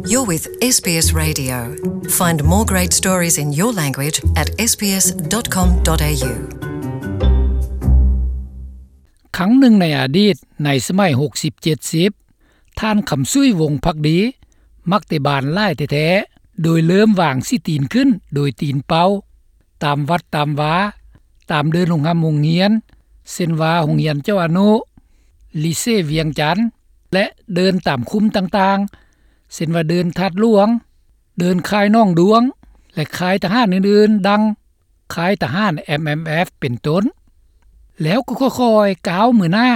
You're with SBS Radio. Find more great stories in your language at sbs.com.au. ຄັ້ງໜຶ່ງໃນອະດີດ, ໃນສະໄໝຫົກສິບເຈັດສິບ, ທ່ານ ຄຳສຸຍ ວົງພັກດີ ມັກເຕະບານຫຼາຍແທ້ໆ, ໂດຍເລີ່ມວາງສີຕີນຂຶ້ນໂດຍຕີນເປົ່າ ຕາມວັດຕາມວາ, ຕາມເດີ່ນໂຮງຮ່ຳໂຮງຮຽນ, ເຊັ່ນວ່າໂຮງຮຽນເຈົ້າອະນຸ, ລີເຊວຽງຈັນ ແລະ ເດີ່ນຕາມຄຸ້ມຕ່າງໆ ເຊັ່ນວ່າເດີ່ນທາດຫຼວງ, ເດີ່ນຄ້າຍໜອງດວງ ແລະ ຄ້າຍທະຫານອື່ນໆ ດັ່ງຄ້າຍທະຫານ ເອັມເອັມເອັຟ ເປັນຕົ້ນ. ແລ້ວກໍຄ່ອຍໆກ້າວມືໜ້າ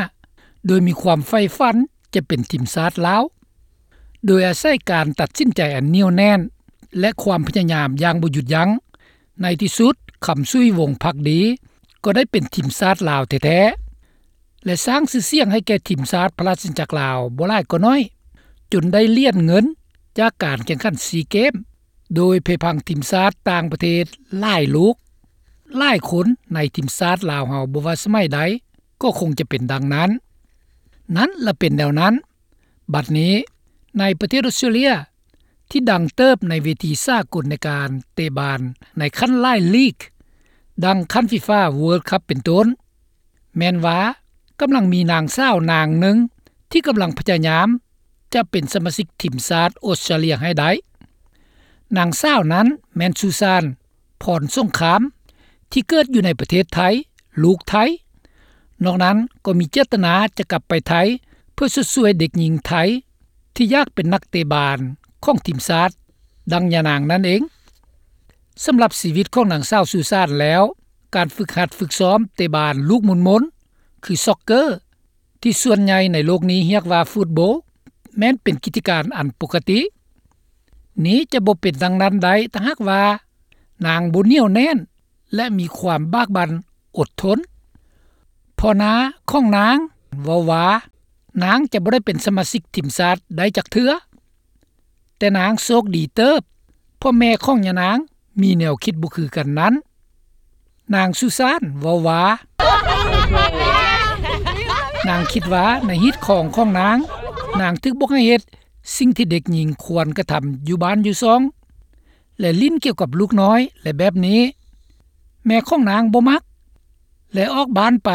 ໂດຍມີຄວາມໃຝ່ຝັນຈະເປັນທີມຊາດລາວ. ໂດຍອາໄສການຕັດສິນໃຈອັນໜຽວແໜ້ນ ແລະ ຄວາມພະຍາຍາມຢ່າງບໍ່ຢຸດຢັ້ງ, ໃນທີ່ສຸດ ຄຳສຸຍ ວົງພັກດີ ກໍໄດ້ເປັນທີມຊາດລາວແທ້ໆ ແລະ ສ້າງຊື່ສຽງໃຫ້ແກ່ທີມຊາດພະລາຊະອານາຈັກລາວບໍ່ຫຼາຍກໍໜ້ອຍ, ຈົນໄດ້ຫຼຽນເງິນຈາກການແຂ່ງຂັນຊີເກມ, ໂດຍເພພັງທີມຊາດຕ່າງປະເທດຫຼາຍລູກ. ຫຼາຍຄົນໃນທີມຊາດລາວເຮົາບໍ່ວ່າສະໄໝໃດ ກໍຄົງຈະເປັນດັ່ງນັ້ນ. ນັ້ນລະເປັນແນວນັ້ນ. ບັດນີ້ ໃນປະເທດອອສເຕຣເລຍ ທີ່ດັງເຕີບໃນເວທີສາກົນໃນການເຕະບານໃນຂັ້ນຫຼາຍລີກ ດັ່ງຂັ້ນ FIFA World Cup ເປັນຕົ້ນ, ແມ່ນວ່າກຳລັງມີນາງສາວນາງໜຶ່ງທີ່ກຳລັງພະຍາຍາມຈະເປັນສະມາຊິກທີມຊາດອອສເຕຣເລຍໃຫ້ໄດ້. ນາງສາວນັ້ນແມ່ນ ສຸສານ ພອນສົງຄາມ ທີ່ເກີດຢູ່ໃນປະເທດໄທ, ລູກໄທ. ນອກນັ້ນກໍມີເຈດຕະນາຈະກັບໄປໄທ ເພື່ອຊົດຊ່ວຍເດັກຍິງໄທທີ່ຢາກເປັນນັກເຕະບານຂອງທີມຊາດ ດັ່ງຍານາງນັ້ນເອງ. ສຳລັບຊີວິດຂອງນາງສາວ ສຸສານ ແລ້ວ, ການຝຶກຫັດຝຶກຊ້ອມເຕະບານລູກມົນໆ ຄື soccer ທີ່ສ່ວນໃຫຍ່ໃນໂລກນີ້ຮຽກວ່າຟຸດໂບ ແມ່ນເປັນກິດຈະການອັນປົກກະຕິ. ນີ້ຈະບໍ່ເປັນດັ່ງນັ້ນໄດ້ ຖ້າຫາກວ່ານາງບໍ່ໜຽວແໜ້ນ ແລະ ມີຄວາມບາກບັ່ນອົດທົນ. ພໍ່ນ້າຂອງນາງເວົ້າວ່າ ນາງຈະບໍ່ໄດ້ເປັນສະມາຊິກທີມຊາດໄດ້ຈັກເທື່ອ. ແຕ່ນາງໂຊກດີເຕີບ ເພາະແມ່ຂອງຍານາງມີແນວຄິດບໍ່ຄືກັນນັ້ນ. ນາງ ສຸສານ ເວົ້າວ່າ ນາງຄິດວ່າໃນຮີດຄອງຂອງນາງ, ນາງຖືກບອກໃຫ້ເຮັດສິ່ງທີ່ເດັກຍິງຄວນກະທຳຢູ່ບ້ານຢູ່ຊ່ອງ ແລະ ຫຼິ້ນກ່ຽວກັບລູກນ້ອຍ ແລະ ແບບນີ້. ແມ່ຂອງນາງບໍ່ມັກ ແລະ ອອກບ້ານໄປ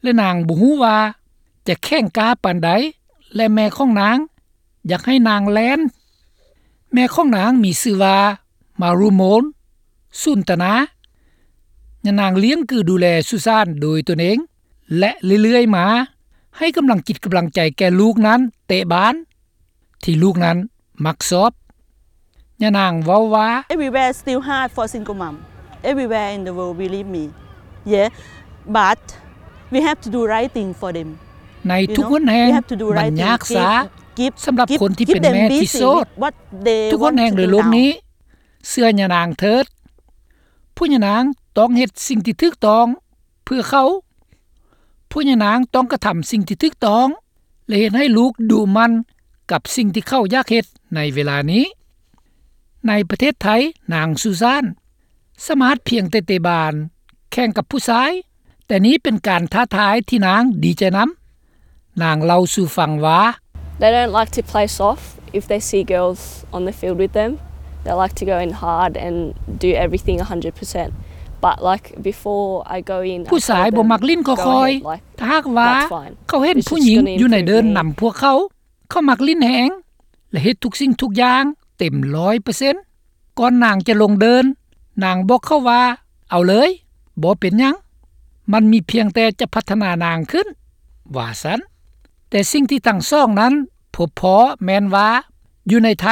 ແລະ ນາງບໍ່ຮູ້ວ່າຈະແຂງກ້າປານໃດ ແລະ ແມ່ຂອງນາງຢາກໃຫ້ນາງແລ່ນ. ແມ່ຂອງນາງມີຊື່ວ່າ ມາຣູໂມນ ສູນຕະນາ. ຍານາງລ້ຽງກືດູແລສຸສານໂດຍຕົນເອງ ແລະ ເລື້ອຍໆມາ ໃຫ້ກຳລັງຈິດກຳລັງໃຈແກ່ລູກນັ້ນເຕະບານ ທີ່ລູກນັ້ນມັກຊອບ. ຍານາງເວົ້າວ່າ Everywhere is still hard for single mom. Everywhere in the world, believe me. Yeah, but we have to do right thing for them. ໃນທຸກຫົນແຫ່ງ ມັນຍາກຊ້າສຳລັບຄົນທີ່ເປັນແມ່ທີ່ໂສດ. ທຸກຫົນແຫ່ງໃນໂລກນີ້ ເຊື່ອຍານາງເຖີດ. ພວກຍານາງຕ້ອງເຮັດສິ່ງທີ່ຖືກຕ້ອງເພື່ອເຂົາ. ພວກຍານາງຕ້ອງກະທຳສິ່ງທີ່ຖືກຕ້ອງ ແລະ ເຮັດໃຫ້ລູກດຸໝັ່ນກັບສິ່ງທີ່ເຂົາຢາກເຮັດໃນເວລານີ້. ໃນປະເທດໄທ, ນາງ ສຸສານ ສາມາດພຽງແຕ່ເຕະບານແຂ່ງກັບຜູ້ຊາຍ, ແຕ່ນີ້ເປັນການທ້າທາຍທີ່ນາງດີໃຈນຳ. ນາງເລົ່າສູ່ຟັງວ່າ They don't like to play soft if they see girls on the field with them. They like to go in hard and do everything a hundred percent. But, like, before I go in, ຜູ້ຊາຍບໍ່ມັກຫຼິ້ນຄ່ອຍໆ. ຖ້າຫາກວ່າເຂົາເຫັນຜູ້ຍິງຢູ່ໃນເດີ່ນນຳພວກເຂົາ, ເຂົາມັກຫຼິ້ນແຮງ ແລະ ເຮັດທຸກສິ່ງທຸກຢ່າງເຕັມຮ້ອຍເປີເຊັນ. ກ່ອນນາງຈະລົງເດີ່ນ, ນາງບອກເຂົາວ່າ ເອົາເລີຍ, ບໍ່ເປັນຫຍັງ, ມັນມີພຽງແຕ່ຈະພັດທະນານາງຂຶ້ນ, ວ່າຊັ້ນ. ແຕ່ສິ່ງທີ່ທັງສອງນັ້ນພົບພໍ້ແມ່ນວ່າ ຢູ່ໃນໄທ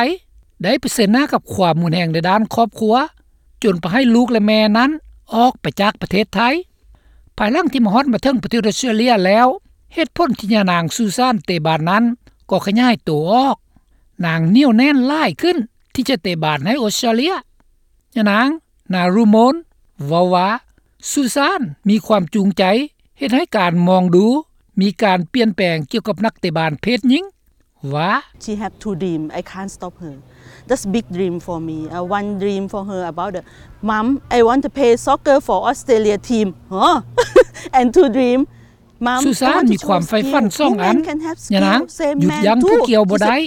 ໄດ້ປະເຊີນໜ້າກັບຄວາມຮຸນແຮງໃນດ້ານຄອບຄົວ, ຈົນພາໃຫ້ລູກ ແລະ ແມ່ນັ້ນອອກໄປຈາກປະເທດໄທ. ພາຍຫຼັງທີ່ມາຮອດມາເຖິງປະເທດອອສເຕຣເລຍແລ້ວ, ເຫດຜົນທີ່ຍານາງ ສຸສານ ເຕະບານນັ້ນກໍຂະຫຍາຍໂຕອອກ. ນາງໜຽວແໜ້ນຫຼາຍຂຶ້ນທີ່ຈະເຕະບານໃຫ້ອອສເຕຣເລຍ. ຍານາງ ນາຣູໂມນ ເວົ້າວ່າ ສຸສານ ມີຄວາມຈູງໃຈເຮັດໃຫ້ການມອງດູມີການປ່ຽນແປງກ່ຽວກັບນັກເຕະບານເພດຍິງ ວ່າ She have two dream. I can't stop her. That's big dream for me. Uh, one dream for her about the, "Mom, I want to play soccer for Australia team." Huh? And two dream, "Mom, I want to choose skill. Women can have skill, same man too." ສຸສານ ມີຄວາມໃຝ່ຝັນສອງອັນ. ຍານາງ ຢຸດຢັ້ງຜູ້ກ່ຽວບໍ່ໄດ້.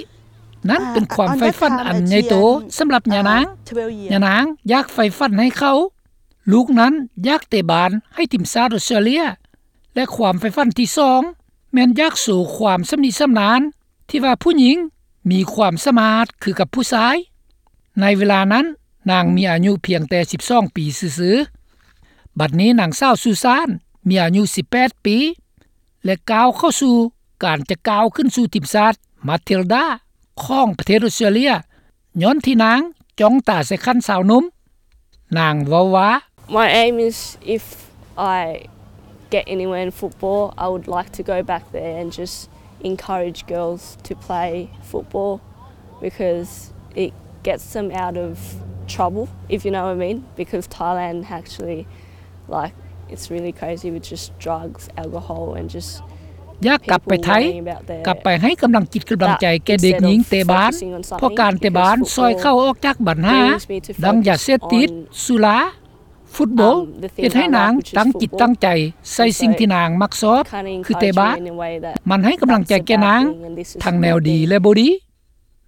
ນັ້ນເປັນຄວາມໃຝ່ຝັນອັນໃຫຍ່ໂຕສຳລັບຍານາງ. ຍານາງຢາກໃຝ່ຝັນໃຫ້ເຂົາ. ລູກນັ້ນຢາກເຕະບານໃຫ້ທີມຊາດອອສເຕຣເລຍ ແລະ ຄວາມໃຝ່ຝັນທີສອງ ແມ່ນຢາກໂຊຄວາມຊຳນິຊຳນານ ທີ່ວ່າຜູ້ຍິງມີຄວາມສາມາດຄືກັບຜູ້ຊາຍ. ໃນເວລານັ້ນນາງມີອາຍຸພຽງແຕ່ສິບສອງປີຊື່ໆ. ບັດນີ້ນາງສາວຊູຊານມີອາຍຸສິບແປດປີ ແລະ ກ້າວເຂົ້າສູ່ການຈະກ້າວຂຶ້ນສູ່ທີມຊາດມາທິລດາຂອງປະເທດອອສເຕຣເລຍ ຍ້ອນທີ່ນາງຈ້ອງຕາໃສ່ຂັ້ນຊາວໜຸ່ມ. ນາງເວົ້າວ່າ My aim is if I get anywhere in football, I would like to go back there and just encourage girls to play football because it gets them out of trouble, if you know what I mean, because Thailand actually, like, it's really crazy with just drugs, alcohol and just ຢາກກັບໄປໄທ ກັບໄປໃຫ້ກຳລັງຈິດກຳລັງໃຈແກ່ເດັກຍິງເຕະບານ ເພາະການເຕະບານຊ່ອຍເຂົາອອກຈາກບັນຫາ ດັ່ງຢາເສບຕິດ, ສຸລາ, ຟຸດບອລ ເຮັດໃຫ້ນາງຕັ້ງຈິດຕັ້ງໃຈໃສ່ສິ່ງທີ່ນາງມັກຊອບ ຄືເຕະບານ. ມັນໃຫ້ກຳລັງໃຈແກ່ນາງ ທັງແນວດີ ແລະ ບໍ່ດີ.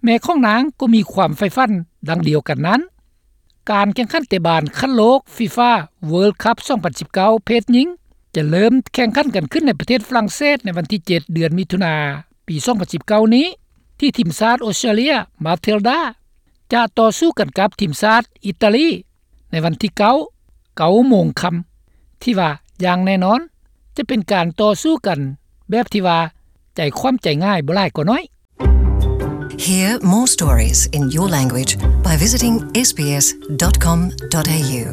ແມ່ຂອງນາງກໍມີຄວາມໃຝ່ຝັນດັ່ງດຽວກັນນັ້ນ. ການແຂ່ງຂັນເຕະບານຂັ້ນໂລກ FIFA World Cup ສອງພັນສິບເກົ້າ ເພດຍິງ ຈະເລີ່ມແຂ່ງຂັນກັນຂຶ້ນໃນປະເທດຝຣັ່ງເສດໃນວັນທີເຈັດ ເດືອນມິຖຸນາ ປີສອງພັນສິບເກົ້ານີ້ ທີ່ທີມຊາດອອສເຕຣເລຍ ມາທິລດາ ຈະຕໍ່ສູ້ກັນກັບທີມຊາດອີຕາລີ ໃນວັນທີເກົ້າ ເກົ້າໂມງຄ່ຳ ທີ່ວ່າຢ່າງແນ່ນອນຈະເປັນການຕໍ່ສູ້ກັນແບບທີ່ວ່າໃຈຄວ່ຳໃຈງ່າຍບໍ່ຫຼາຍກໍໜ້ອຍ. Hear more stories in your language by visiting S B S dot com dot A U.